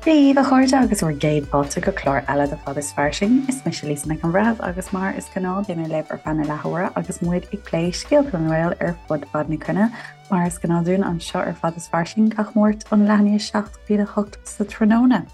Dia daoibh a chairde agus bhur gcéad fáilte go clár eile de Fad is Fairsing. Is mise Lisa Nic an Bhreithimh agus mar is gnáth beidh mé libh ar feadh na leathuaire agus muid ag plé scéalta na nGael ar fud fad na cruinne. Mar is gnáth dúinn anseo ar Fad is Fairsing gach Máirt ón leath i ndiaidh 7 go dtí 8 sa tráthnóna.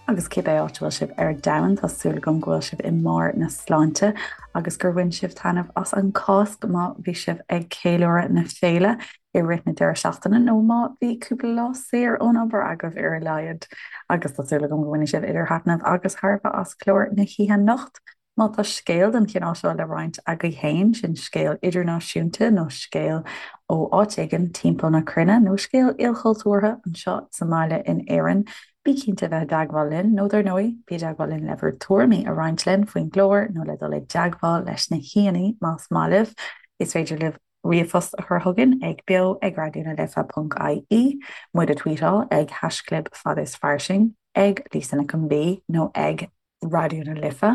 Agus cibé áit a bhfuil sibh ar domhan, tá súil agam go bhfuil sibh i mbarr na sláinte agus gur bhain sibh taitneamh as an Cháisc má bhí sibh ag ceiliúradh na féile i rith na deireadh seachtaine nó má bhí cúpla lá saor ón obair agaibh ar a laghad. Agus tá súil agam go mbainfidh sibh idir thaitneamh agus thairbhe as clár na hoíche anocht. Má tá scéal den chineál seo le roinnt agaibh féin, sin scéal idirnáisiúnta nó scéal ó áit éigin timpeall na cruinne nó scéal ilchultúrtha anseo sa mbaile in Éirinn, bí cinnte a bheith i dteagmháil linn nó dar ndóigh, bí i dteagmháil linn le bhur dtuairimí a roinnt linn faoin gclár nó le dul i dteagmháil leis na haíonna más maith libh. Is féidir libh ríomhphost a chur chugainn ag beo ag raidió na life ponc ie, muid a tweetáil ag haischlib fad is fairsing, ag Lisa Nic an B nó ag Raidió na Life,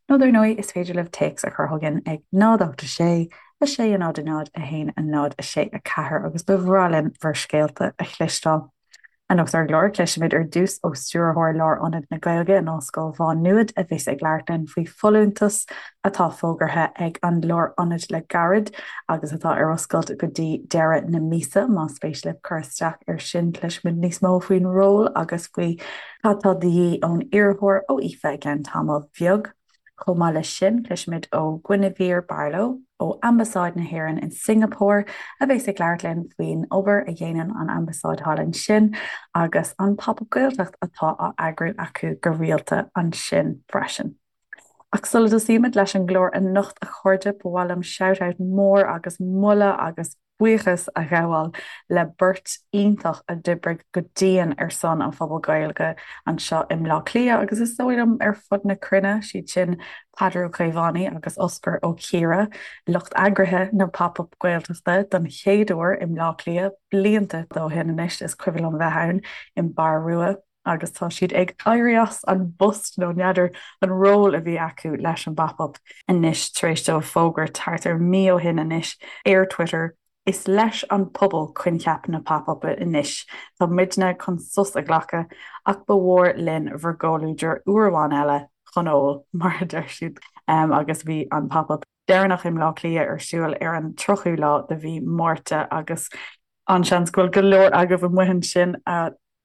nó dar ndóigh is féidir libh téacs a chur chugainn ag 0 8 6 6 0 0 1 0 6 4 agus ba bhreá linn bhur scéalta a chloisteáil. Anocht ar an gclár, cloisfimid ar dtús ó Stiúrthóir Lárionad na Gaeilge in Ollscoil Mhá Nuad a bheas ag labhairt linn faoi folúntas atá fógartha ag an Lárionad le gairid agus atá ar oscailt go dtí deireadh na míosa. Más spéis libh cur isteach air sin, cloisfimid níos mó faoin ról agus faoi Cad tá de dhíth ón iarrthóir ó Aoife i gceann tamaill bheag? Chomh maith leis sin, cloisfimid ó Guinevere Barlow ó Ambasáid na hÉireann in Singapore a bheas ag labhairt linn faoin obair a dhéanann an Ambasáid thall ansin agus an Pop Up Gaeltacht atá á eagrú acu go rialta ansin freisin. Ach sula dtosaímid leis an gclár anocht, a chairde, ba mhaith liom shout out mór agus moladh agus buíochas a ghabháil le beirt iontach a d'oibrigh go dian ar son an phobal Gaeilge anseo i mBleá Cliath agus is dóigh liom ar fud na cruinne, siad sin Peadar Ó Caomhánaigh agus Osgur Ó Ciardha, lucht eagraithe na Pop Up Gaeltachta don chéad uair i mBleá Cliath blianta ó shin anois, is cuimhin liom bheith ann i mBarr Rua. agus tá siad ag éirí as an bpost, nó n'fheadar an ról a bhí acu leis an bPop Up anois tar éis dóibh fógairt thart ar mí ó shin anois ar Twitter, Is leis an pobal coincheap na Pop Up anois, tá muidne chun sos a ghlacadh ach ba mhór linn bhur gcomhluadar uair amháin eile chun óil, mar a deir siad, agus bhí an Pop Up deireanach i mBleá Cliath ar siúl ar an 30ú lá de mhí Márta agus an-seans go bhfuil go leor agaibh amuigh ansin a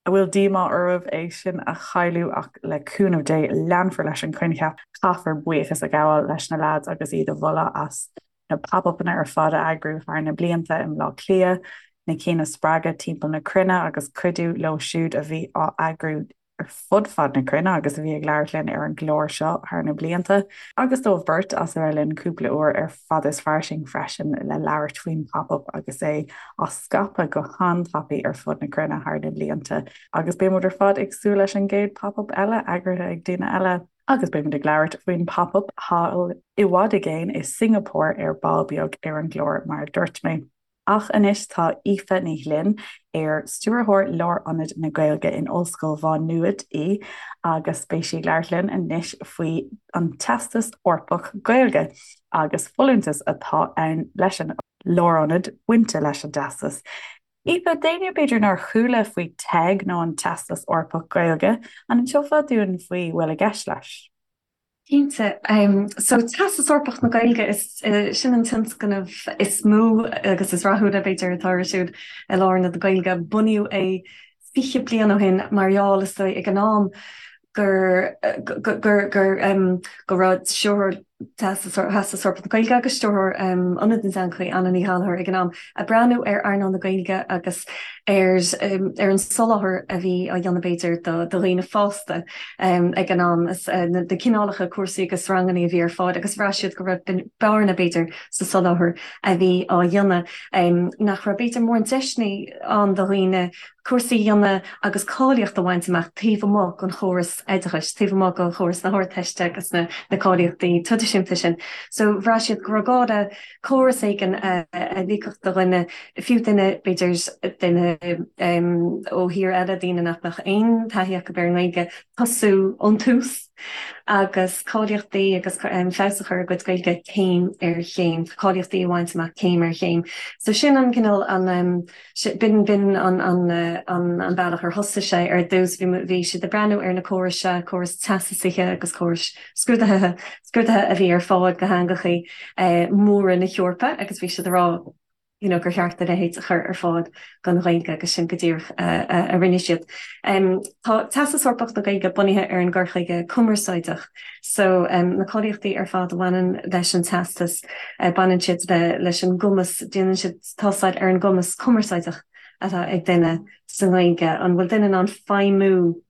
a bhfuil díomá oraibh é sin a chailleadh ach le cúnamh Dé leanfar leis an choincheap. Caithfear buíochas a ghabháil leis na leaids agus iad a mholadh as na pop-upanna ar fad a eagrú thar na blianta i mBleá Cliath, na cinn a spreagadh timpeall na cruinne agus cuidiú leo siúd a bhí á eagrú ar fud fad na cruinne agus a bhí ag labhairt linn ar an gclár seo thar na blianta, agus dóibh beirt as a bheith linn cúpla uair ar Fad is Fairsing freisin le labhairt faoin Pop-Up agus é á scaipeadh go han-tapaidh ar fud na cruinne thar na blianta. Agus beidh muid ar fad ag súil leis an gcéad Pop-Up eile eagraithe ag daoine eile. Agus beidh muid ag labhairt faoin Pop-Up thall i bhfad i gcéin i Singapore ar ball beag ar an gclár mar a dúirt mé. Ach anois tá Aoife Ní Ghlinn, ar Stiúrthóir Lárionad na Gaeilge in Ollscoil Mhá Nuad í, agus beidh sí ag labhairt linn anois faoi an Teastas Eorpach Gaeilge agus folúntas atá ann leis an Lárionad bainte leis an dTeastas. Aoife, d'éinne b'fhéidir nár chuala faoi TEG nó an Teastas Eorpach Gaeilge, an inseofá dúinn faoi bhfuil i gceist leis? Cinnte. So Teastas Eorpach na Gaeilge, is sin an tionscnamh is mó agus is rathúla, b'fhéidir, atá ar siúl i Lárionad na Gaeilge. Bunaíodh é 20 bliain ó shin mar gheall, is dóigh, ag an am gur gur gur go raibh stiúrthóir Theastas Eorpach na Gaeilge agus stiúrthóir Ionad na dTeangacha, Anna Ní Ghallchóir, ag an am, ag breathnú ar earnáil na Gaeilge agus ar ar an soláthar a bhí á dhéanamh b'fhéidir do dhaoine fásta ag an am, na cineálacha cúrsaí agus ranganna a bhí ar fáil agus bhraith siad go raibh bearna b'fhéidir sa soláthar a bhí á dhéanamh, nach raibh b'fhéidir mórán deiseanna ann do dhaoine cúrsaí a dhéanamh agus cáilíocht a bhaint amach taobh amuigh den chóras oideachais, taobh amuigh de chóras na hArdteiste agus na cáilíochtaí traidisiúnta sin. So bhraith siad go raibh gá le córas éigin a ligfeadh do dhuine, fiú duine, b'fhéidir, duine ó thír eile, daoine nach mbeadh aon taithí acu ar an nGaeilge, tosú ón tús. Agus cáilíochtaí agus feabhas a chur ar a gcuid Gaeilge céim ar chéim, cáilíochtaí a bhaint amach céim ar chéim. So sin an cineál an b'in b'in an an an bealach ar thosaigh sé ar dtús. Bhí bhí siad ag breathnú ar na córais seo, córais teastasaithe agus córais scrúdaithe scrúdaithe a bhí ar fáil do theangachaí móra na hEorpa agus bhí siad ag rá, you know, gur cheart a leithéid a chur ar fáil don Ghaeilge agus sin go díreach a rinne siad. Tá Teastas Eorpach na Gaeilge bunaithe ar an gcur chuige cumarsáideach so na cáilíochtaí ar fad a bhaineann leis an teastas, baineann siad le leis an gcumas, déanann siad tástáil ar an gcumas cumarsáideach atá ag duine sa nGaeilge, an bhfuil duine in ann feidhmiú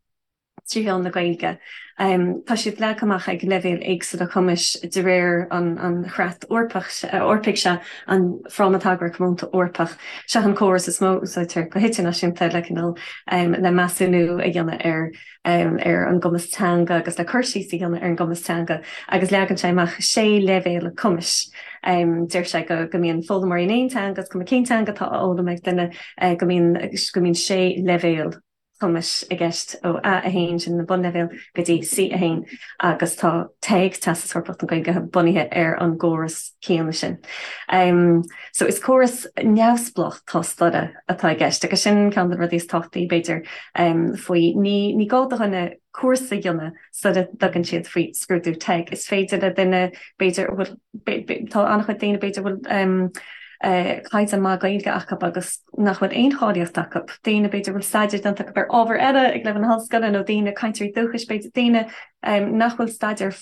3 mheán na Gaeilge. Tá siad leagtha amach ag leibhéil éagsúla cumais de réir an Chreat Eorpaigh seo, an Fráma Tagartha Comónta Eorpach. Seo an córas is mó a úsáidtear go hidirnáisiúnta le cineál le measúnú a dhéanamh ar ar an gcumas teanga agus le cur síos a dhéanamh ar an gcumas teanga agus leagann sé amach sé leibhéal cumais. Deir sé go go mbíonn foghlaimeoirí in aon teanga, is cuma cén teanga atá á fhoghlaim ag duine, go mbíonn go mbíonn sé leibhéal cumais i gceist ó A1, sin an bunleibhéal, go dtí C1 agus tá TEG, Teastas Eorpach na Gaeilge, bunaithe ar an gcóras céanna sin. So is córas neamhspleách tástála atá i gceist agus sin ceann de na rudaí is tábhachtaí, b'fhéidir, faoi. Ní ní gá do dhuine cúrsa a dhéanamh sula dtugann siad faoi scrúdú TEG. Is féidir le duine, b'fhéidir, a bhfuil, tá an-chuid daoine, b'fhéidir, a bhfuil caighdeán maith Gaeilge acu agus nach bhfuil aon cháilíocht acu, daoine, b'fhéidir, a bhfuil staidéar déanta acu ar ábhar eile ag leibhéal na hollscoile nó daoine, cainteoirí dúchais, b'fhéidir, daoine nach bhfuil staidéar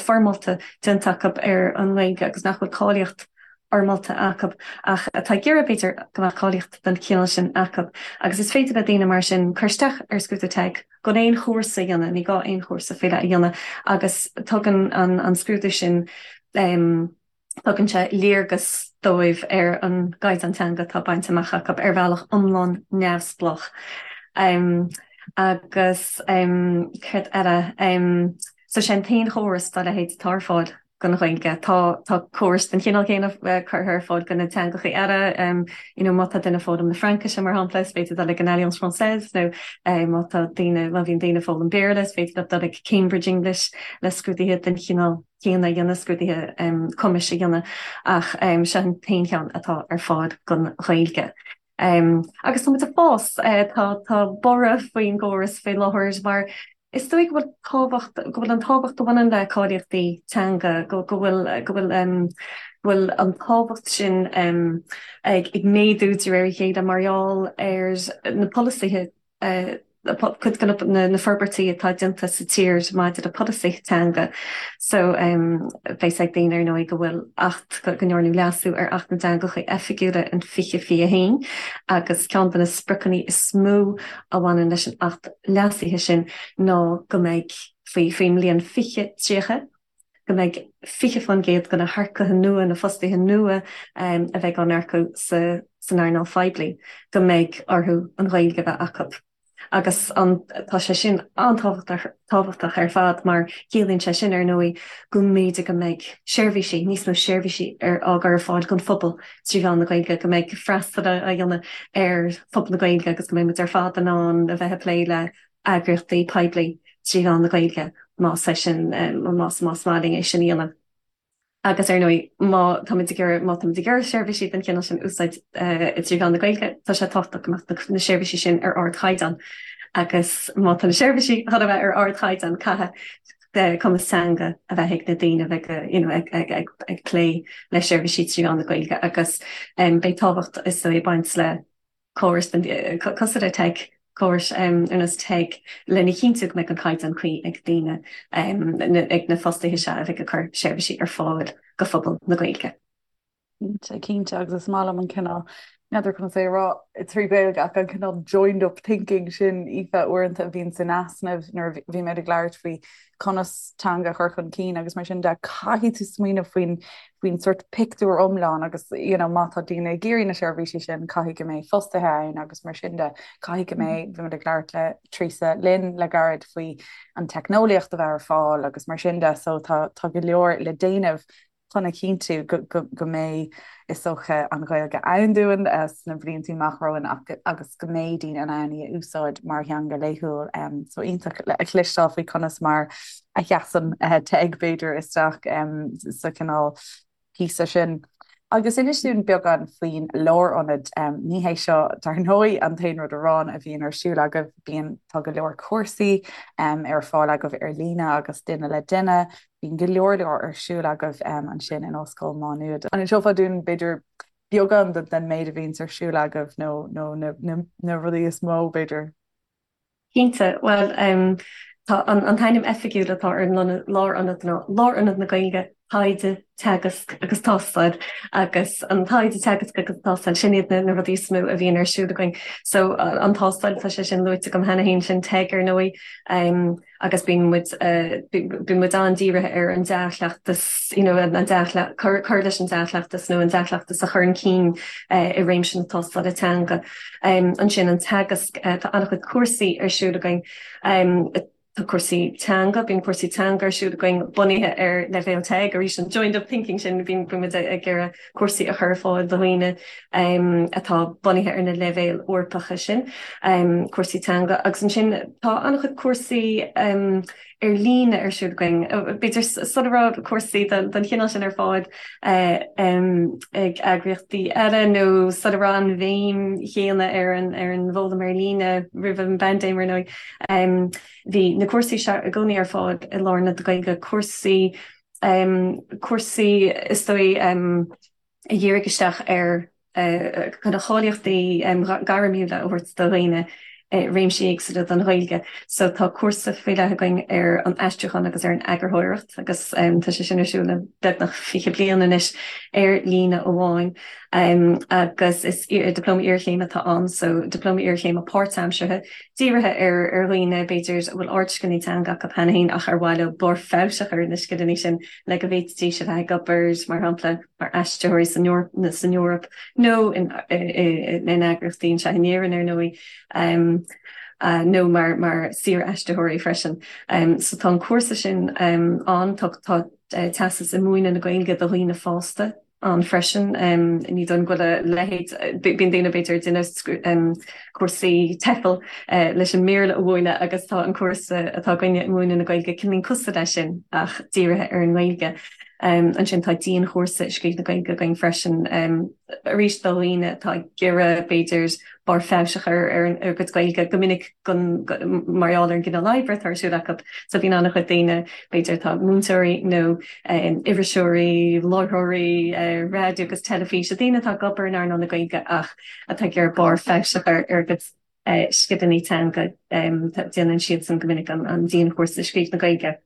foirmeálta déanta acu ar an nGaeilge agus nach bhfuil cáilíocht fhoirmeálta acu ach atá ag iarraidh, b'fhéidir, go mbeadh cáilíocht den chineál sin acu. Agus is féidir le daoine mar sin cur isteach ar scrúdú TEG gan aon chúrsa a dhéanamh, ní gá aon chúrsa faoi leith a dhéanamh agus tugann an scrúdú sin, tugann sé léargas dóibh ar an gcaighdeán teanga atá bainte amach acu ar bhealach iomlán neamhspleách. Agus céard eile? So sé an t-aon chóras dá leithéid atá ar fáil don Ghaeilge. Tá tá córais den chineál céanna curtha ar fáil do na teangacha eile, you know má tá duine ag foghlaim na Fraincise mar shampla, is féidir dul ag an Alliance Française nó má tá daoine má bhíonn daoine ag foghlaim Béarla is féidir leo dul ag Cambridge English le scrúduithe den chineál céanna a dhéanamh, scrúduithe cumais a dhéanamh ach seo an t-aon cheann atá ar fáil don Ghaeilge. Agus tá muid ag fás, tá tá borradh faoin gcóras faoi láthair mar is dóigh go bhfuil tábhacht, go bhfuil an tábhacht a bhaineann le cáilíochtaí teanga, go go bhfuil go bhfuil go bhfuil an tábhacht sin ag ag méadú de réir a chéile mar gheall ar na polasaithe cuid de na forbairtí atá déanta sa tír maidir le polasaithe teanga. So beidh fhios ag daoine ar ndóigh go bhfuil Acht, go ndearnadh leasú ar Acht na dTeangacha Oifigiúla in 2021 agus ceann de na spriocanna is mó a bhaineann leis an Acht leasaithe sin ná go mbeidh faoi faoin mbliain 2030, go mbeidh 20% de na hearcaithe nua, na fostaithe nua a bheidh á n-earcú san earnáil phoiblí, go mbeidh orthu an Ghaeilge a bheith acu. Agus an, tá sé sin an-tábhachtach ar fad mar ciallaíonn sé sin, ar ndóigh, go mb'fhéidir go mbeidh seirbhísí, níos mó seirbhísí ar, á gcur ar fáil don phobal trí mheán na Gaeilge, go mbeidh freastal á dhéanamh ar phobal na Gaeilge agus go mbeidh muid ar fad in ann a bheith ag plé le eagraíochtaí poiblí trí mheán na Gaeilge más é sin, más más maith linn é sin a dhéanamh. Agus ar ndóigh, má táimid ag iarraidh, má táimid ag iarraidh seirbhísí den chineál sin a úsáid trí mheán na Gaeilge, tá sé tábhachtach go mbeadh na seirbhísí sin ar ardchaighdeán. Agus má tá na seirbhísí chun a bheith ar ardchaighdeán, caithfidh cumas teanga a bheith ag na daoine a bheidh you know ag ag ag ag plé le seirbhísí trí mheán na Gaeilge agus beidh tábhacht is dóigh ag baint le córais cosúil le TEG, córais ar nós TEG lena chinntiú go mbeidh an caighdeán cuí ag daoine, ag na fostaithe seo a bheidh ag cur seirbhísí ar fáil do phobal na Gaeilge. Cinnte, cinnte, agus is maith liom an cineál, n'fheadar conas é a rá trí Ghaeilge ach an cineál joined up thinking sin, Aoife, uaireanta a bhíonn san easnamh nuair a bhímid ag labhairt faoi conas teanga a chur chun cinn agus mar sin de, caithfidh tú smaoineamh faoin faoin sort pictiúr iomlán agus you know má tá daoine ag iarraidh na seirbhísí sin caithfidh go mbeidh fostaithe ann agus mar sin de, caithfidh go mbeidh, bhí muid ag labhairt le Teresa Lynn le gairid faoi an teicneolaíocht a bheith ar fáil agus mar sin de so tá tá go leor le déanamh. chun a chinntiú go mbeidh, is dócha, an Ghaeilge ann dúinn sna blianta amach romhainn agus go mbeidh daoine in ann í a úsáid mar theanga laethúil. So iontach a chloisteáil faoi conas mar a sheasann TEG, b'fhéidir, isteach sa chineál píosa sin. Agus inis dúinn beagán faoin lárionad. Ní hé seo, dar ndóigh, an t-aon rud amháin a bhíonn ar siúl agaibh, bíonn, tá go leor cúrsaí ar fáil agaibh ar líne agus duine le duine. Bíonn go leor leor ar siúl agaibh ansin in Ollscoil Mhá Nuad. An inseofá dúinn, b'fhéidir, beagán den méid a bhíonns ar siúl agaibh nó na rudaí is mó, b'fhéidir? Cinnte. Bhuel, tá an t-ainm oifigiúil atá ar an lárionad ná Lárionad na Gaeilge, Taighde, Teagasc agus Tástáil. Agus an taighde, teagasc agus tástáil, sin iad na rudaí is mó a bhíonn ar siúl againn. So, an tástáil, tá sé sin luaite agam cheana féin, sin TEG ar ndóigh. Agus bíonn muid, bíonn muid an-dírithe ar an dea-chleachtas, you know, an dea-chleachtas, cur, cur leis an dea-chleachtas nó an dea-chleachtas a chur chun cinn i réimse na tástála teanga. Ansin an teagasc, tá an-chuid cúrsaí ar siúl againn. Tá cúrsaí teanga, bíonn cúrsaí teanga ar siúl againn bunaithe ar leibhéal TEG, arís an joined up thinking sin, bíonn muid ag iarraidh cúrsaí a chur ar fáil do dhaoine atá bunaithe ar na leibhéil Eorpacha sin, cúrsaí teanga. Agus ansin tá an-chuid cúrsaí ar líne ar siúl againn. B'fhéidir sula raibh cúrsaí den chineál sin ar fáil ag eagraíochtaí eile nó sula raibh an bhéim chéanna ar an bhfoghlaim ar líne roimh an bpaindéim ar ndóigh, bhí na cúrsaí seo i gcónaí ar fáil i Lárionad na Gaeilge, cúrsaí cúrsaí is dóigh a dhírigh isteach ar kind of cáilíochtaí gairmiúla a thabhairt do dhaoine i réimsí éagsúla den Ghaeilge. So tá cúrsa faoi leith againn ar an aistriúchán agus ar an eagarthóireacht agus tá sé sin ar siúl le beagnach 20 bliain anois ar líne amháin. Agus is dioplóma iarchéime atá ann, so dioplóma iarchéime páirtaimseartha dírithe ar dhaoine, b'fhéidir, a bhfuil ardscileanna teanga acu cheana féin ach ar mhaith leo barr feabhais a chur ar na scileanna sin le go bhféadfaidís a bheith ag obair, mar shampla, mar aistritheoirí san Eoraip nó in eagraíochtaí anseo in Éirinn, ar ndóigh, nó mar saor-aistritheoirí freisin. So tá an cúrsa sin ann. Tá teastas i múineadh na Gaeilge do dhaoine fásta ann freisin. Ní dóigh liom go bhfuil a leithéid, bíonn daoine b'fhéidir ag déanamh cúrsaí TEFL leis an mBéarla a mhúineadh agus tá an cúrsa atá againne i múineadh na Gaeilge cineál cosúil leis sin ach dírithe ar an nGaeilge. Ansin tá dianchúrsa i scríobh na Gaeilge againn freisin, arís do dhaoine atá ag iarraidh b'fhéidir barr feabhais a chur ar a gcuid Gaeilge go minic mar gheall ar an gcineál oibre atá ar siúl acu. So bíonn an-chuid daoine, b'fhéidir atá múinteoirí nó iriseoirí, láithreoirí raidió agus teilifíse, daoine atá ag obair in earnáil na Gaeilge ach atá ag iarraidh barr feabhais a chur ar a gcuid scileanna teanga, déanann siadsan go minic an dianchúrsa scríobh na Gaeilge.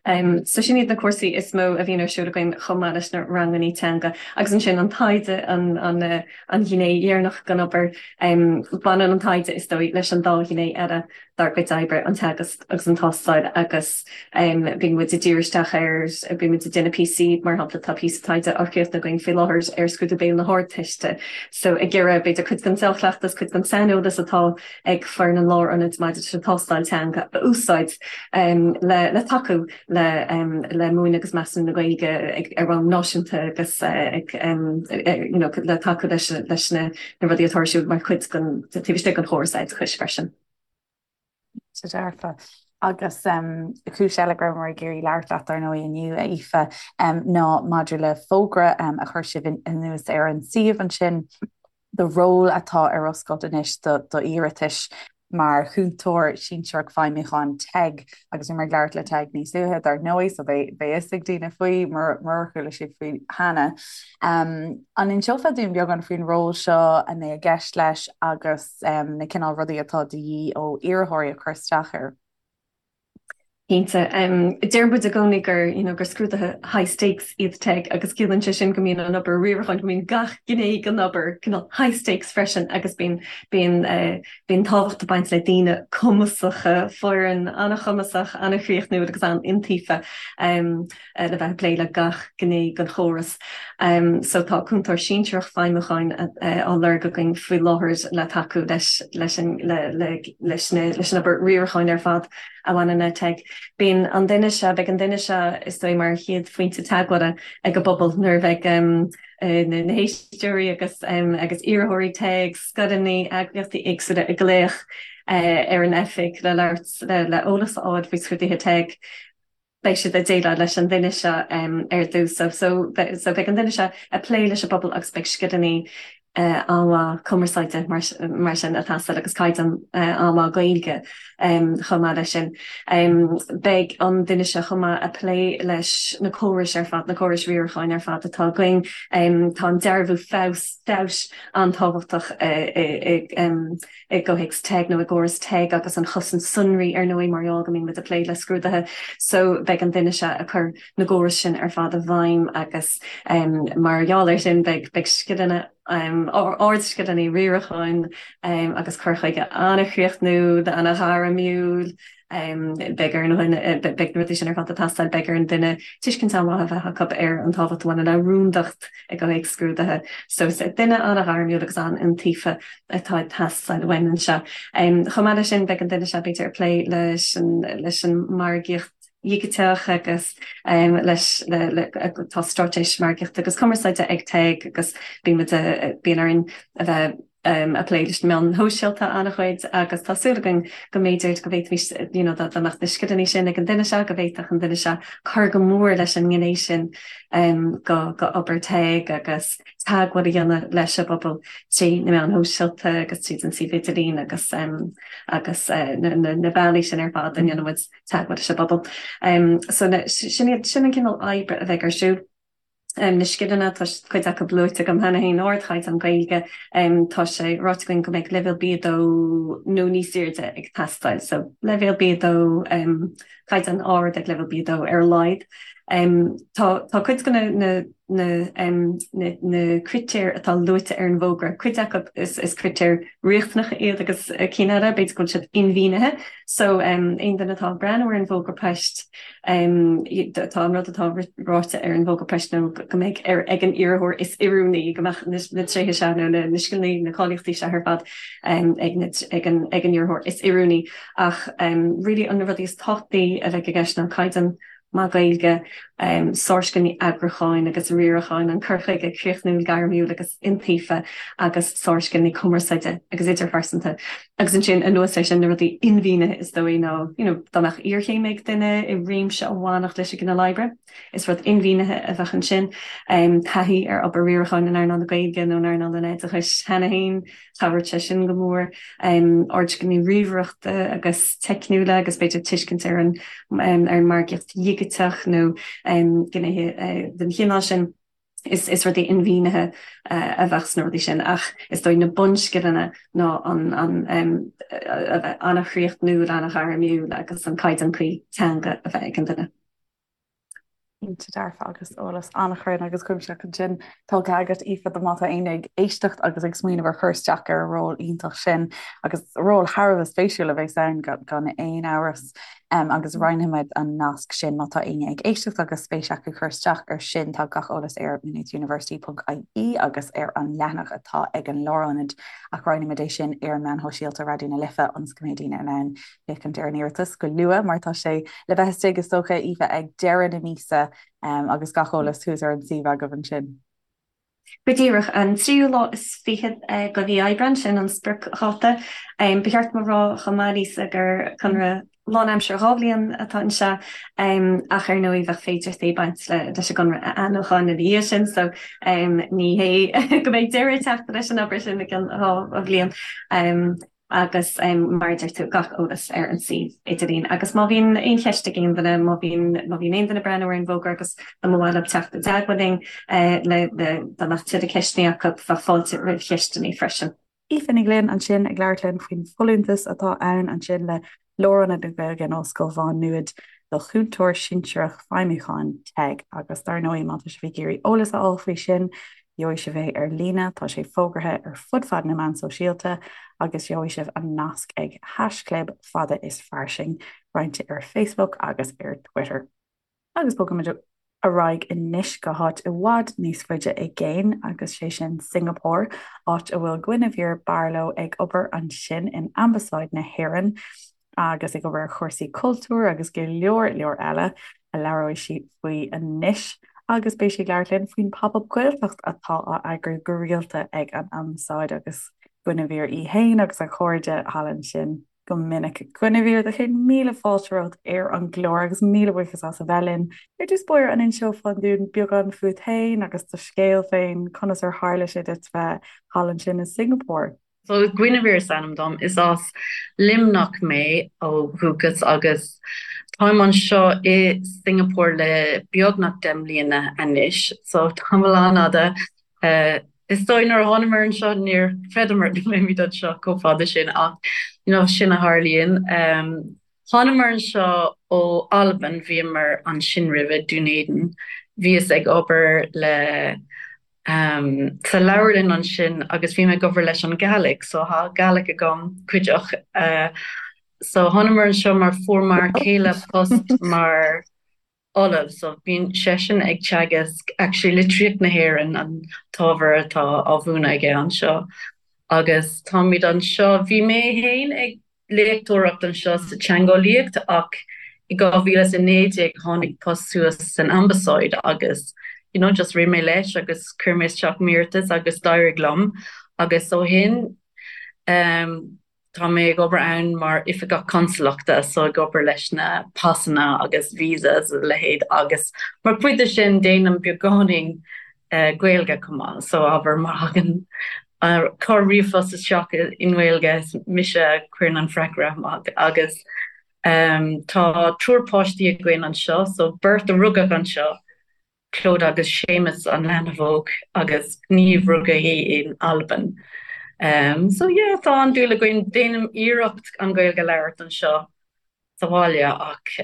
So sin iad na cúrsaí is mó a bhíonn ar siúl againn chomh maith leis na rangannaí teanga. Agus ansin an taighde, an an ghné dheireanach den obair. Baineann an taighde, is dóigh, leis an dá ghné eile dár gcuid oibre, an teagasc agus an tástáil agus bíonn muid ag díriú isteach ar, bíonn muid ag déanamh píosaí, mar shampla tá píosa taighde á chríochnú againn faoi láthair ar scrúdú béil na hArdteiste. So ag iarraidh b'fhéidir cuid den dea-chleachtas, cuid den saineolas atá ag foireann an Lárionaid maidir leis an tástáil teanga a úsáid le tacú le múineadh agus measúnú na Gaeilge ar bhonn náisiúnta agus le tacú leis na rudaí atá ar siúl mar chuid den taobh istigh den chóras oideachais freisin. Go dearfa. Agus cúis eile go rabhamar ag iarraidh labhairt leat, dar ndóigh, inniu, a Aoife, ná maidir le fógra a chuir sibh anuas ar an suíomh ansin, do ról atá ar oscailt anois d'iarratais mar Chúntóir Sinsearach Feidhmiúcháin TEG agus bhíomar ag labhairt le TEG níos luaithe dar ndóigh so beidh fhios ag daoine faoi murar chuala siad faoi cheana. An inseofá dúinn beagán faoin ról seo, a mbeidh i gceist leis agus na cineál rudaí atá de dhíth ó iarrthóirí a chur isteach air? Cinnte. Deir muid i gcónaí gur, you know, gur scrúduithe high stakes iad TEG agus ciallaíonn sé sin go mbíonn an obair riaracháin, go mbíonn gach gné den obair cineál high stakes freisin agus bíonn, bíonn, bíonn tábhacht ag baint le daoine cumasacha, foireann an-chumasach, an-chríochnúil agus an-iontaofa. le bheith ag plé le gach gné den chóras. So tá Cúntóir Sinsearach Feidhmiúcháin á lorg againn faoi láthair le tacú leis leis an leis na leis an obair riaracháin ar fad a bhaineann le TEG. Bíonn an duine seo, beidh an duine seo is dóigh mar chéad phointe teagmhála ag an bpobal nuair a bheidh na héisteoirí agus agus iarrthóirí TEG, scoileanna, eagraíochtaí éagsúla ag glaoch ar an oifig le labhairt le eolas a fháil faoi scrúduithe TEG. beidh siad ag déileáil leis an duine seo ar dtús. So so beidh an duine seo ag plé leis an bpobal agus beidh scileanna an-mhaith cumarsáide mar mar sin ag teastáil agus caighdeán an-mhaith Gaeilge chomh maith leis sin. Beidh an duine seo chomh maith ag plé leis na córais ar fad, na córais riaracháin ar fad atá againn. Tá an dearbhú feabhas feabhais an-tábhachtach i i gcomhthéacs TEG nó i gcóras TEG agus an chosaint sonraí ar ndóigh mar gheall go mbíonn muid ag plé le scrúduithe so beidh an duine seo ag cur na gcóras sin ar fad i bhfeidhm agus mar gheall air sin beidh beidh scileanna ardscileanna riaracháin agus cur chuige an-chríochnúil, an-ghairmiúil. Beidh ar an dhuine, beidh na rudaí sin ar fad ag teastáil, beidh ar an duine tuiscint an-mhaith a bheith acu ar an tábhacht a bhaineann le rúndacht i gcomhthéacs scrúduithe. So is duine an-ghairmiúil agus an-iontaofa atá ag teastáil uainn anseo. Chomh maith leis sin, beidh an duine seo b'fhéidir ag plé leis an leis an margaíocht dhigiteach agus leis le le tá straitéis margaíochta agus cumarsáide ag TEG agus bíonn muid bíonn orainn a bheith ag plé leis na meáin shóisialta an-chuid agus tá súil againn go mb'fhéidir go bhféadfaimis you know dá mbeadh na scileanna sin ag an duine seo go bhféadfadh an duine seo cur go mór leis an ngné sin go go obair TEG agus teagmháil a dhéanamh leis an bpobal trí na meáin shóisialta agus tríd an suíomh idirlín agus agus na na bealaí sin ar fad a ndéanann muid teagmháil leis an bpobal. So sin iad sin an cineál oibre a bheidh ar siúl. Na scileanna, tá cuid acu luaite agam cheana féin, ardchaighdeán Gaeilge, tá sé ráite againn go mbeidh leibhéal B2 nó níos airde ag teastáil, so leibhéal B2, caighdeán ard ag leibhéal B2 ar a laghad. Tá tá cuid de na na na na critéir atá luaite ar an bhfógra, cuid acu is is critéir riachtanacha iad agus cinn eile, b'fhéidir go bhfuil siad inmhianaithe. So aon duine atá ag breathnú ar an bhfógra poist, Tá an rud atá ráite ar an bhfógra poist ná go mbeidh ar ag an iarrthóir is oiriúnaí, go mbeadh na tréithe seo nó na scileanna, na cáilíochtaí seo ar fad ag an ag an iarrthóir is oiriúnaí. Ach really na rudaí is tábhachtaí a bheidh i gceist ná caighdeán maith Gaeilge, sárscileanna eagrúcháin agus riaracháin, an cur chuige críochnúil, gairmiúil agus iontaofa agus sárscileanna cumarsáide agus idirphearsanta. Agus ansin, anuas air sin, na rudaí inmhianaithe is dóigh ná, you know, dá mbeadh iarchéim ag duine i réimse a bhainfeadh leis an gcineál oibre, is rud inmhianaithe a bheadh ansin. Taithí ar obair riaracháin in earnáil na Gaeilge nó in earnáil an oideachais cheana féin, chabhródh sé sin go mór. Ardscileanna ríomhaireachta agus teicniúla agus b'fhéidir tuiscint ar an, ar an margaíocht dhigiteach nó gnéithe den chineál sin. Is is rudaí inmhianaithe a bheadh sna rudaí sin ach is dóigh na bunscileanna ná an an a bheith an-chríochnúil, an-ghairmiúil agus an caighdeán cuí teanga a bheith ag an duine. Cinnte dearfa agus eolas an-chruinn agus cuimsitheach ansin tugtha agat Aoife do má tá éinne ag éisteacht agus ag smaoineamh ar chur isteach ar an ról iontach sin agus ról thar a bheith spéisiúil a bheas ann gan aon amhras. Agus roinnfimid an nasc sin má tá éinne ag éisteacht agus spéis acu cur isteach air sin. Tá gach eolas ar maynoothuniversity.ie agus ar an leathanach atá ag an Lárionad ach roinnfimid é sin ar na meáin shóisialta Raidió na Life ionas go mbeidh daoine in ann féachaint ar an iarratas go luath mar tá sé le bheith istigh is dócha, Aoife, ag deireadh na míosa agus gach eolas thuas ar an suíomh agaibh ansin. Go díreach, an tríú lá is fichead de mhí Aibreáin, sin an spriocdháta. Ba cheart dom a rá chomh maith, Lisa, gur conradh lánaimseartha 2 bhliain atá anseo, ach ar ndóigh bheadh féidearthachtaí ag baint leis an gconradh a athnuachan ina dhiaidh sin, so ní hé go mbeidh deireadh ag teacht leis an obair sin i gcionn 2 bhliain. Agus mar a deir tú, gach eolas ar an suíomh idirlín. Agus má bhíonn aon cheist ag aon duine, má bhíonn má bhíonn aon duine ag breathnú ar an bhfógra agus dá mba mhaith leo teacht i dteagmháil linn le le dá mbeadh tuilleadh ceisteanna acu, bheadh fáilte roimh cheisteanna freisin. Aoife Ní Ghlinn ansin ag labhairt linn faoin bhfolúntas atá ann ansin le Lárionad na Gaeilge in Ollscoil Mhá Nuad do Chúntóir Sinsearach Feidhmiúcháin, TEG, agus dar ndóigh má tá sibh ag iarraidh eolas a fháil faoi sin, gheobhaidh sibh é ar líne, tá sé fógartha ar fud fad na meán sóisialta agus gheobhaidh sibh an nasc ag haischlib fada is fairsing, roinnte ar Facebook agus ar Twitter. Agus bogfaimid ar aghaidh anois go háit i bhfad níos faide i gcéin, agus sé sin Singapore, áit a bhfuil Guinevere Barlow ag obair ansin in Ambasáid na hÉireann. agus ag obair ar chúrsaí cultúir agus go leor leor eile a labhróidh sí faoi anois agus beidh sí ag labhairt linn faoin Pop Up Gaeltacht atá á eagrú go rialta ag an Ambasáid agus Guinevere í fhéin agus a cairde thall ansin go minic. Guinevere, do chéad míle fáilte romhat ar an gclár agus míle buíochas as a bheith linn. Ar dtús báire, an inseofá dúinn beagán fút féin agus do scéal féin, conas ar tharla sé duit bheith thall ansin i Singapore? So Guinevere is ainm dom. Is as Luimneach mé ó dhúchas agus táim anseo i Singapore le beagnach 10 mbliana anois, so tamall an-fhada. Is dóigh nuair a thánamar anseo níor chreideamar go mbeimid anseo chomh fada sin ach you know sin a tharlaíonn. Thánamar anseo ó Albain, bhíomar ansin roimhe, Dún Éideann. Bhíos ag obair le sa leabharlann ansin agus bhí mé ag obair leis an Gàidhlig, so tá Gàidhlig agam cuideach. So thánamar anseo mar fuair m'fhear céile post mar ollamh, so bíonn seisean ag teagasc actually litríocht na hÉireann an t-ábhar atá á mhúineadh aige anseo agus táimid anseo, bhí mé féin ag léachtóireacht anseo sa teangeolaíocht ach i 2019 tháinig post suas san Ambasáid agus you know just rith mé leis agus chuir mé isteach m'iarratas agus d'éirigh liom agus ó shin um tá mé ag obair ann mar oifigeach consalachta so ag obair leis na pasanna agus visas a leithéid agus mar chuid de sin déanaim beagáinín Gaeilge chomh maith so abair má thagann corr ríomhphost isteach i nGaeilge is mise a chuireann an freagra amach agus tá triúr páistí againn anseo so beirt a rugadh anseo, Clodagh agus Séamus an leanbh óg agus Niamh rugadh í in Albain. So yeah tá an-dúil againn, déanaim iarracht an Ghaeilge a labhairt anseo sa bhaile ach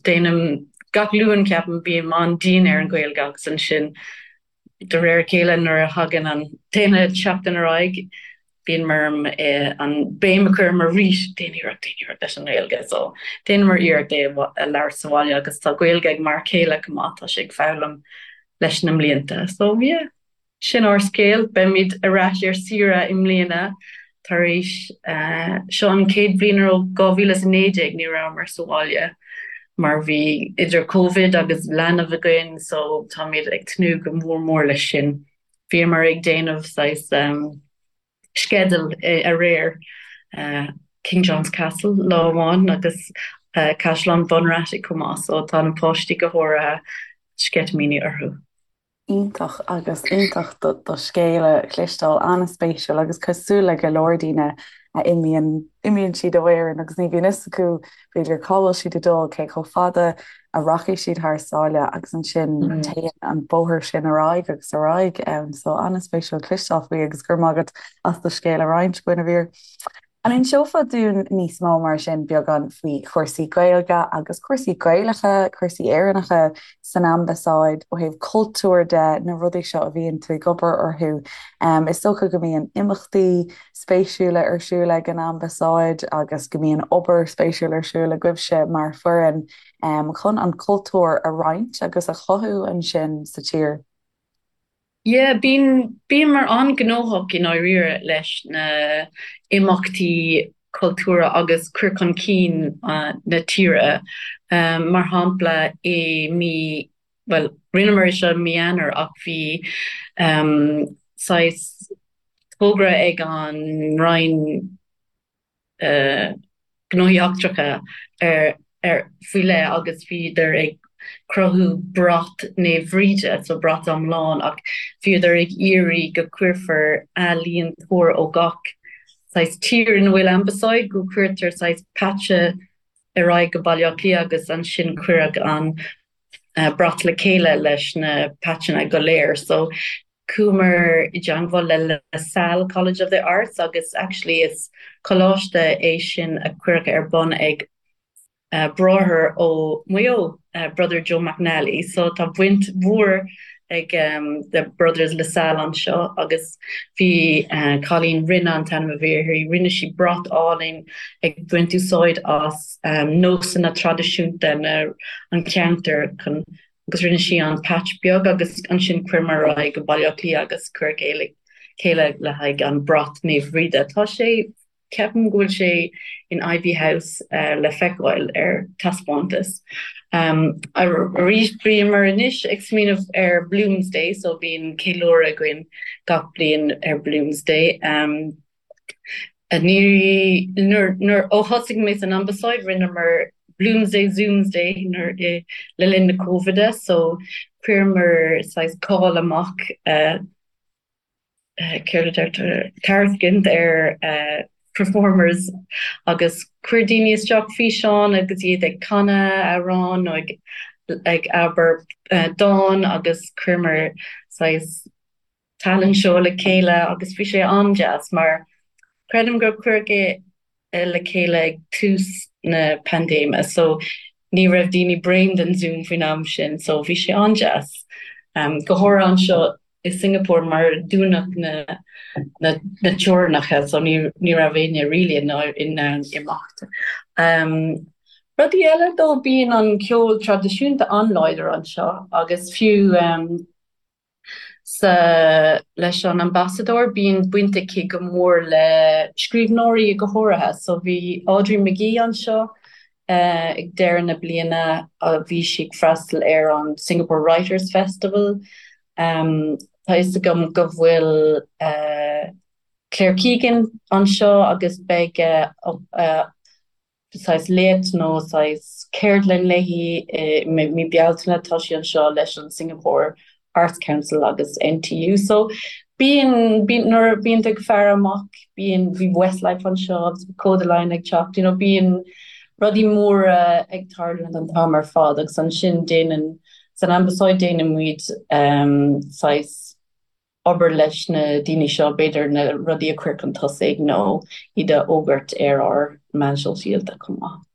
déanaim gach Luan ceapaim bím an-dian ar an Ghaeilge agus ansin de réir a chéile nuair a thagann an t-aon seachtain ar aghaidh bíonn orm an béim a chur orm arís déan iarracht déan iarracht leis an nGaeilge so déanaimid iarracht é a labhairt sa bhaile agus tá Gaeilge ag m'fhear céile chomh maith tá sé ag foghlaim leis na mblianta so yeah. Sin ár scéal. Beimid ar ais ar saoire i mbliana tar éis, seo an chéad bhliain ó 2019 ní rabhamar sa bhaile mar bhí idir Covid agus leanbh againn so táimid ag tnúth go mór mór leis sin. Bhíomar ag déanamh saghas sceideal aréir, King John's Castle lá amháin agus Caisleán Bunratty chomh maith so tá na páistí go háirithe sceitimíní orthu. Iontach agus iontach do scéal a chloisteáil, an-spéisiúil agus cosúil le go leor daoine a imíonn, imíonn siad ó Éirinn agus ní bhíonn fhios acu b'fhéidir cá bhfuil siad ag dul, cé chomh fada a rachaidh siad thar sáile agus ansin téann an bóthar sin ar aghaidh agus ar aghaidh. So an-spéisiúil cloisteáil faoi agus go raibh maith agat as do scéal a roinnt, Guinevere. An inseofá dúinn níos mó mar sin beagán faoi chúrsaí Gaeilge agus cúrsaí Gaelacha, cúrsaí Éireannacha san Ambasáid ó thaobh cultúir de, na rudaí seo a bhíonn tú ag obair orthu? Is dócha go mbíonn imeachtaí spéisiúla ar siúl ag an Ambasáid agus go mbíonn obair spéisiúil ar siúl agaibhse mar foireann chun an cultúr a roinnt agus a chothú ansin sa tír. Yeah, bíonn, bíomar an-ghnóthach i ndáiríre leis na imeachtaí cultúrtha agus cur chun cinn na tíre. Mar shampla, i mí, bhuel, rinneamar é seo i mí Eanáir ach bhí saghas togra ag an Roinn, Gnóthaí Eachtracha ar faoi leith agus bhíodar ag cruthú brat Naomh Bhríde, so brat iomlán, ach bhíodar ag iarraidh go cuirfear ealaíontóir ó gach saghas tír ina bhfuil ambasáid, go cuirtear saghas patch ar aghaidh go Baile Átha Cliath agus ansin cuireadh an brat le chéile leis na patcheanna go léir. So chuamar i dteangmháil le La Salle College of the Arts agus actually is coláiste é sin a cuireadh ar bun ag bráthair ó Mhaigh Eo, Brother Joe McNally. So tá baint mhór ag the Brothers La Salle anseo agus bhí cailín, Rinne an t-ainm a bhí uirthi, rinne sí brat álainn ag baint úsáid as nósanna traidisiúnta na an cheantair chun agus rinne sí an patch beag agus ansin chuireamar ar aghaidh go Baile Átha Cliath agus cuireadh é le chéile le haghaidh an brat Naomh Bhríde. Tá sé. Ceapaim go bhfuil sé in Iveagh House le feiceáil ar taispeántas. Arís bíomar anois ag smaoineamh ar Bloomsday so bíonn ceiliúradh againn gach bliain ar Bloomsday. Ní, nuair, nuair, ó thosaigh mé san Ambasáid rinneamar Bloomsday Zoomsday nuair, le linn na Cóivide so chuireamar saghas call amach céard a deirtear, tairiscint ar performers agus chuir daoine isteach físeáin agus iad ag canadh amhrán nó ag ag abair dán agus chuireamar saghas talent show le chéile agus bhí sé an-deas mar creidim gur cuireadh é le chéile ag tús na paindéime so ní raibh daoine bréan den Zoom faoin am sin so bhí sé an-deas go háirithe anseo i Singapore mar dúnadh na na na teorainneacha so ní ní raibh éinne really in in ann imeacht. Rudaí eile dó bíonn an ceol traidisiúnta an-láidir anseo agus fiú sa leis an ambasadóir bíonn baint aici go mór le scríbhneoirí go háirithe so bhí Audrey McGee anseo ag deireadh na bliana bhí sí ag freastal ar an Singapore Writers Festival. Tá fhios agam go bhfuil Claire Keegan anseo agus beidh saghas léacht nó saghas ceardlann léi i mí Bealtaine. Tá sí anseo leis an Singapore Arts Council agus NTU. So bíonn, bíonn, nuair a bíonn tú ag faire amach, bíonn, bhí Westlife anseo agus Kodaline ag teacht, you know, bíonn rudaí móra ag tarlúint an t-am ar fad agus ansin déanann, san Ambasáid déanann muid um, saghas obair leis na daoine seo, b'fhéidir na rudaí a chur chun tosaigh nó iad a fhógairt ar ár meáin shóisialta chomh maith.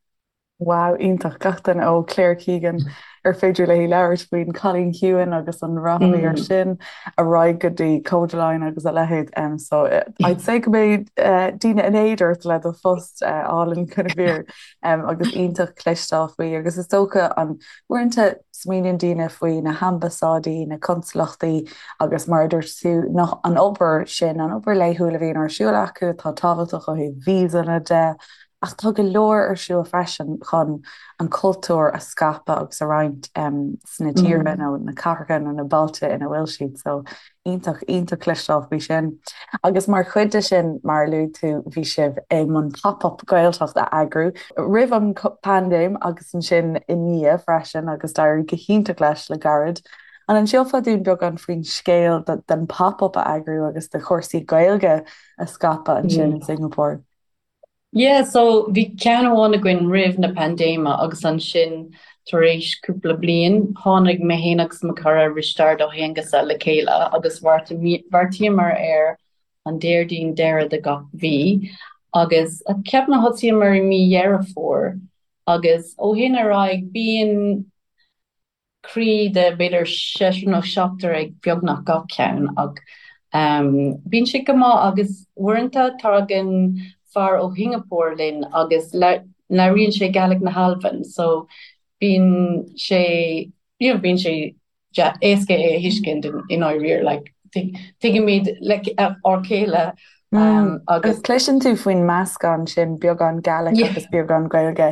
Wow, iontach. Gach duine ó Claire Keegan ar féidir léi labhairt faoin Cailín Ciúin agus an rath a bhí air sin, ar aghaidh go dtí Kodaline agus a leithéid. Um, so I'd say go mbeidh uh, daoine in éad ort le do phost uh, álainn Guinevere um, agus iontach cloisteáil faoi agus is dócha an uaireanta Smaoiníonn daoine faoi na hambasáidí, na consalachtaí agus mar a dúirt tú, an obair sin, an obair laethúil a bhíonn ar siúl acu atá tábhachtach ó thaobh víosanna de, ach tá go leor ar siúl freisin chun an cultúr a scaipeadh agus a roinnt sna tíortha nó na cathracha nó na bailte ina bhfuil siad. So Iontach, iontach cloisteáil faoi sin. Agus mar chuid de sin, mar a luaigh tú, bhí sibh i mbun Pop-Up Gaeltacht a eagrú roimh an bpaindéim agus ansin i ndiaidh freisin agus d'éirigh go hiontach leis le gairid. An inseofá dúinn beagán faoin scéal den Pop-Up a eagrú agus de chúrsaí Gaeilge a scaipeadh ansin in Singapore? Yeah, so bhí ceann amháin againn roimh na paindéime agus ansin tar éis cúpla bliain tháinig mé féin agus mo chara Risteárd Ó hAonghusa le chéile agus bheartaíomar ar an Déardaoin deireadh de gach mhí agus ceapaim thosaíomar i mí Dheireadh Fómhair agus ó shin ar aghaidh bíonn criú de b'fhéidir seisear nó seachtar ag beagnach gach ceann ach bíonn sé go maith agus uaireanta tagann fear ó Shingapore linn agus labhraíonn sé Gaelic na hAlban so bíonn sé you know bíonn sé éasca é a thuiscint i ndáiríre like tuigimid like ár chéile Agus cloiseann tú faoin meascán sin, beagán Gaelic agus beagán Gaeilge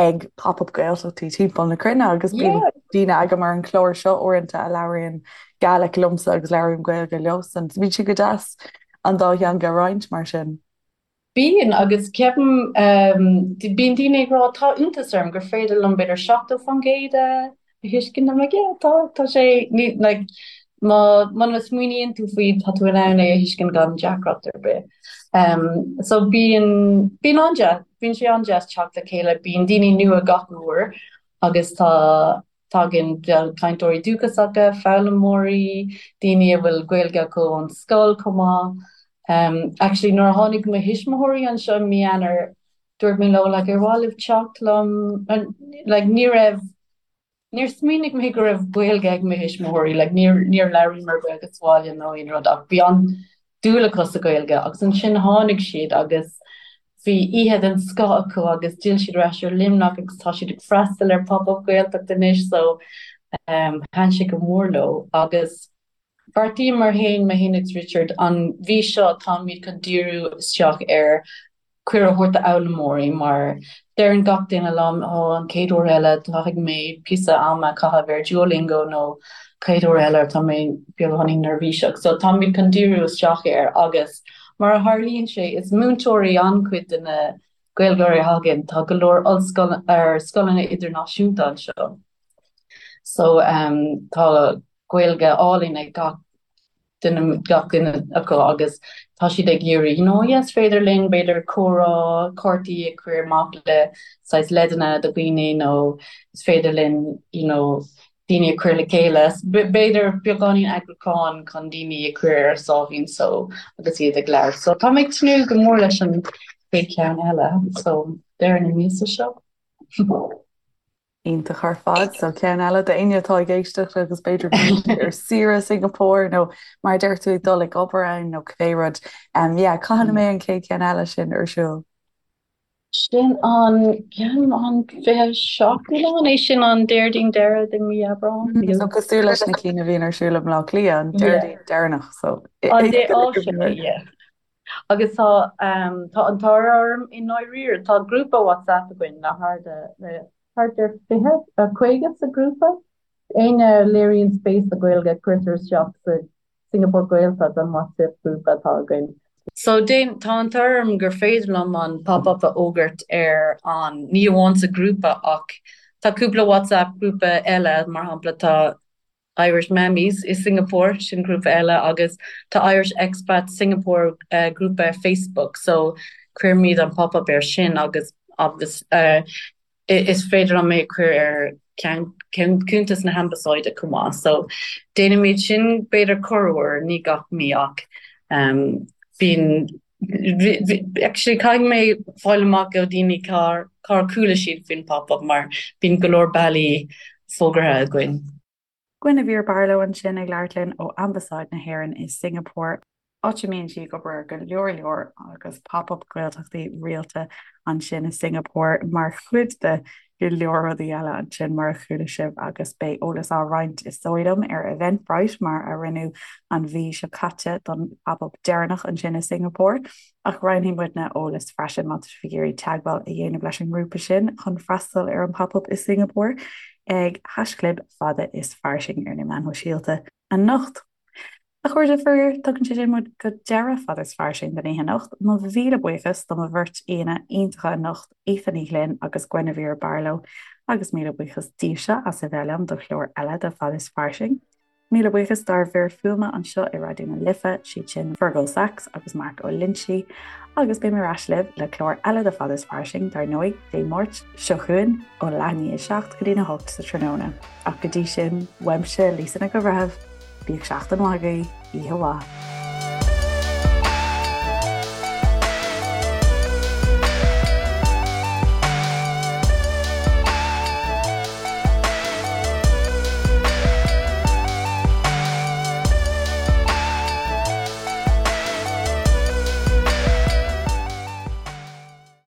ag Pop-Up Gaeltachtaí timpeall na cruinne agus bíonn daoine agam ar an chlár seo uaireanta a labhraíonn Gaelic liomsa agus labhraím Gaeilge leosan. Bíonn sé go deas an dá theanga a roinnt mar sin. Bíonn, agus ceapaim, bíonn daoine ag rá, tá iontas orm gur féidir liom b'fhéidir 70% a thuiscint. I'm like, yeah, tá, tá sé, ní, like, má, muna smaoiníonn tú faoi, tá tú in ann é a thuiscint gan deacracht ar bith. Um, so bíonn, bíonn an-deas, bíonn sé an-deas teacht le chéile, bíonn daoine nua gach uair agus tá, Tagann cainteoirí dúchasacha, foghlaimeoirí, daoine a bhfuil Gaeilge acu ón scoil chomh maith. Actually nuair a tháinig mo thuismitheoirí anseo i mí Eanáir, dúirt mé leo like ar mhaith libh teacht liom? Like ní raibh, níor smaoinigh mé go raibh Gaeilge ag mo thuismitheoirí, like níor, níor labhraíomar Gaeilge sa bhaile nó aon rud ach bhí an dúil acu sa Ghaeilge agus ansin tháinig siad agus bhí oíche den scoth acu agus d'fhill siad ar ais ar Luimneach agus tá siad ag freastal ar Pop Up Gaeltacht anois so thaitin sé go mór leo agus bheartaíomar féin, mé féin agus Richard, an mhí seo táimid chun díriú isteach ar. Cuireadh a thabhairt d'fhoghlaimeoirí mar deireann gach duine liom ó an chéad uair eile caithfidh mé píosa ama a chaitheamh ar Duolingo nó chéad uair eile tá mé beagáinín neirbhíseach. So táimid chun díriú isteach air agus mar a tharlaíonn sé is múinteoirí an-chuid de na Gaeilgeoirí a thagann, tá go leor ollscoil ar scoileanna idirnáisiúnta anseo. So um, tá Gaeilge álainn ag gach duine, gach duine acu agus tá siad ag iarraidh, you know, yes, féidir linn b'fhéidir comhrá, cártaí a chur amach le saghas leideanna do dhaoine nó is féidir linn, you know, daoine a chur le chéile. B'fhéidir beagáinín eagrúcháin chun daoine a chur ar a sáimhín só agus iad ag labhairt. So tá mé ag tnúth go mór leis an chéad cheann eile, so deireadh na míosa seo. Iontach ar fad. So ceann eile d'éinne atá ag éisteacht agus b'fhéidir go bhfuil siad ar saoire i Singapore nó mar a deir tú ag dul ag obair ann nó cibé rud. Um, yeah, cathain a mbeidh an chéad cheann eile sin ar siúl? Sin an ceann an 27ú lá, an é sin an Déardaoin deireadh de mí Aibreán? Mm, so cosúil leis na cinn a bhíonn ar siúl i mBleá Cliath, an Déardaoin deireanach, so An dé á sin, yeah. Agus tá tá an t-ádh orm i ndáiríre, tá grúpa WhatsApp againn le thart le thart ar 20, 50 sa ghrúpa. Éinne a léiríonn spéis sa Ghaeilge cuirtear isteach sa Singapore Gaeltacht an WhatsApp grúpa atá againn. So déan, tá an t-ádh orm gur féidir liom an pop-up a fhógairt ar an, ní amháin sa ghrúpa ach tá cúpla WhatsApp grúpa eile, mar shampla tá Irish Mammies i Singapore, sin grúpa eile, agus tá Irish Expats Singapore grúpa ar Facebook so cuirimid an pop-up ar sin agus agus is féidir liom é a chur ar cuntas na hAmbasáide chomh maith. So déanaimid sin b'fhéidir corruair, ní gach mí ach bíonn actually caithfidh mé fáil amach ó daoine cár cár chuala siad faoin pop-up mar bíonn go leor bealaí fógartha againn. Guinevere Barlow ansin ag labhairt linn ó Ambasáid na hÉireann i Singapore, áit a mbíonn sí ag obair ar go leor leor agus pop-up Gaeltachtaí rialta ansin i Singapore mar chuid de go leor rudaí eile ansin mar a chuala sibh agus beidh eolas á roinnt is dóigh liom ar Eventbrite mar a rinneadh an mhí seo caite don pop-up deireanach ansin i Singapore. Ach roinnfidh muidne eolas freisin má tá sibh ag iarraidh teagmháil a dhéanamh leis an ngrúpa sin chun freastal ar an Pop Up i Singapore ag haischlib fada is fairsing ar na meáin shóisialta anocht. A chairde, faraor, tugann sé sin muid go deireadh Fada is Fairsing don oíche anocht. Mo mhíle buíochas do mo bheirt aíonna iontacha anocht, Aoife Ní Ghlinn agus Guinevere Barlow, agus míle buíochas daoibhse as a bheith liom do chlár eile de Fada is Fairsing. Míle buíochas dár bhfir fuaime anseo i Raidió na Life, siad sin Fergal Sachs agus Mark Ó Loinsigh, agus beidh mé ar ais libh le clár eile de Fada is Fairsing, dar ndóigh, Dé Máirt seo chugainn ó leath i ndiaidh a 7 go dtína 8 sa tráthnóna. Ach go dtí sin, uaimse, Lisa Nic an Bhreithimh, bíodh seachtain mhaith agaibh, oíche mhaith.